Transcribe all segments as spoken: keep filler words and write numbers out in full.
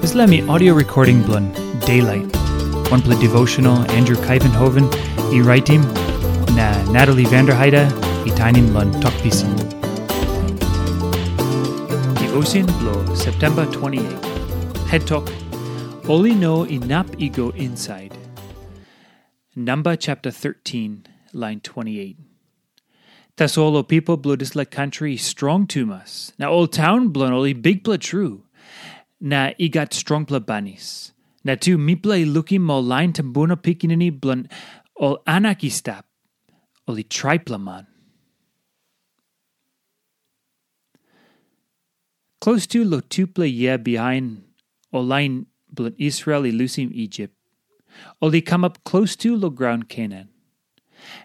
Dispela mi audio recording bilong Daylight, wanpela devotional Andrew Kaivenhoven i raitim, na Natalie Vanderheide i tainim long Tok Pisin. Devotion bilong September twenty-eight. Het tok, ol i no inap i go inside. Namba chapter thirteen, line twenty-eight. Tasol ol pipel bilong dispela kantri i strong tumas, na ol taun bilong ol i bikpela tru, na i gat strongpela banis. Na tu mipela i lukim ol lain tumbuna pikinini bilong ol Anak i stap, ol i traipela man. Klostu long tupela yia bihain ol lain bilong Israel i lusim Isip, ol i kamap klostu long graun Kenan.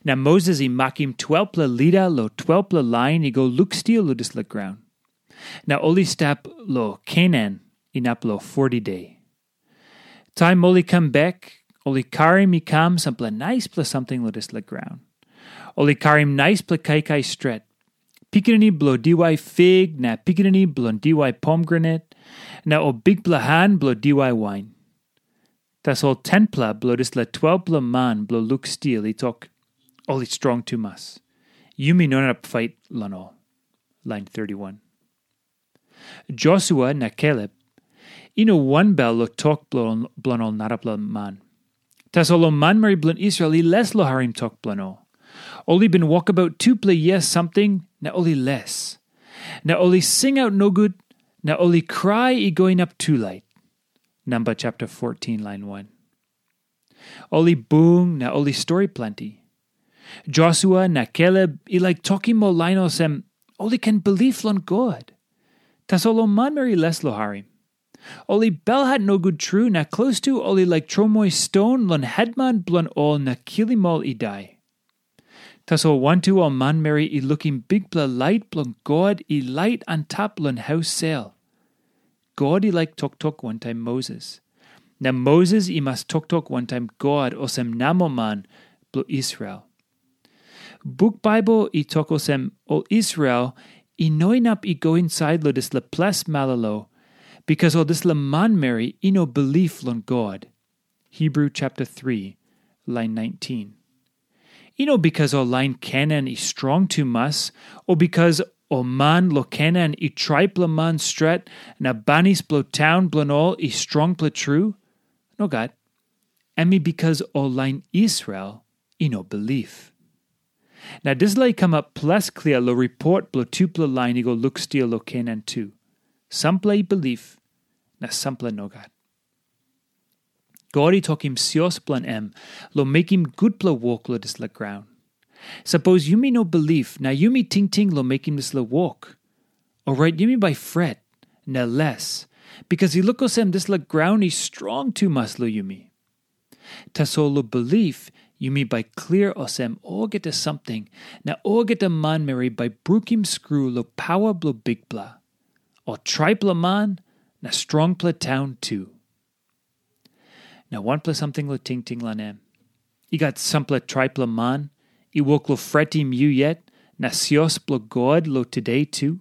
Na Moses i makim twelpela lida long twelpela lain i go lukstil long dispela graun. Na ol i stap long Kenan inap long foti de. Taim ol i kam bek, ol i karim i kam sampela naispela samting long dispela graun. Ol i karim naispela kaikai stret, pikinini bilong diwai fig na pikinini bilong diwai pomgranat, na ol bikpela han bilong diwai wain. Tasol tenpela bilong dispela twelpela man bilong lukstil i tok, ol i strong tumas. Yumi no inap pait long ol. Lain thirty-one. Josua na Kaleb i no wanbel long tok bilong ol narapela man. Tasol ol manmeri bilong Israel i les long harim tok bilong ol. Ol i bin wokabaut tupela yia samting na ol i les. Na ol i singaut nogut, na ol i krai i go inap tulait. Namba chapter fourteen, lain one. Ol i bung na ol i stori planti. Josua na Kaleb i laik tokim ol lain olsem, ol i ken bilip long God. Tasol ol manmeri i les long harim. Ol i belhat nogut tru na klostu ol i laik tromoi ston long hetman bilong ol na kilim ol i dai. Tasol wantu ol manmeri i lukim bikpela lait bilong God i lait antap long haus sel. God i laik toktok wantaim Moses. Na Moses i mas toktok wantaim God olsem namoman bilong Israel. Buk Baibel i tok olsem, ol Israel i no inap i go insait long dispela ples malolo, bikas ol dispela manmeri i no bilip long God. Hebrew chapter three, lain nineteen. I no bikas ol lain Kenan i strong tumas, o bikas ol man long Kenan i traipela man stret, na banis bilong taun bilong ol i strongpela tru. Nogat. Em i bikas ol lain Israel i no bilip. Na dispela i kamap ples klia long ripot bilong tupela lain i go lukstil long Kenan tu. Sampela i bilip, na sampela nogat. God i tokim sios bilong em long mekim gutpela wok long dispela graun. Sapos yumi no bilip na yumi tingting long mekim dispela wok, orait yumi bai fret na les, bikas i luk olsem dispela graun i strong tumas long yumi. Tasol long bilip, yumi bai klia olsem olgeta samting na olgeta manmeri bai brukim skru long pawa bilong Bikpela, ol traipela man na strongpela taun tu. Na wanpela samting long tingting long em. I gat sampela traipela man i wok long fretim yu yet, na sios bilong God long tude tu.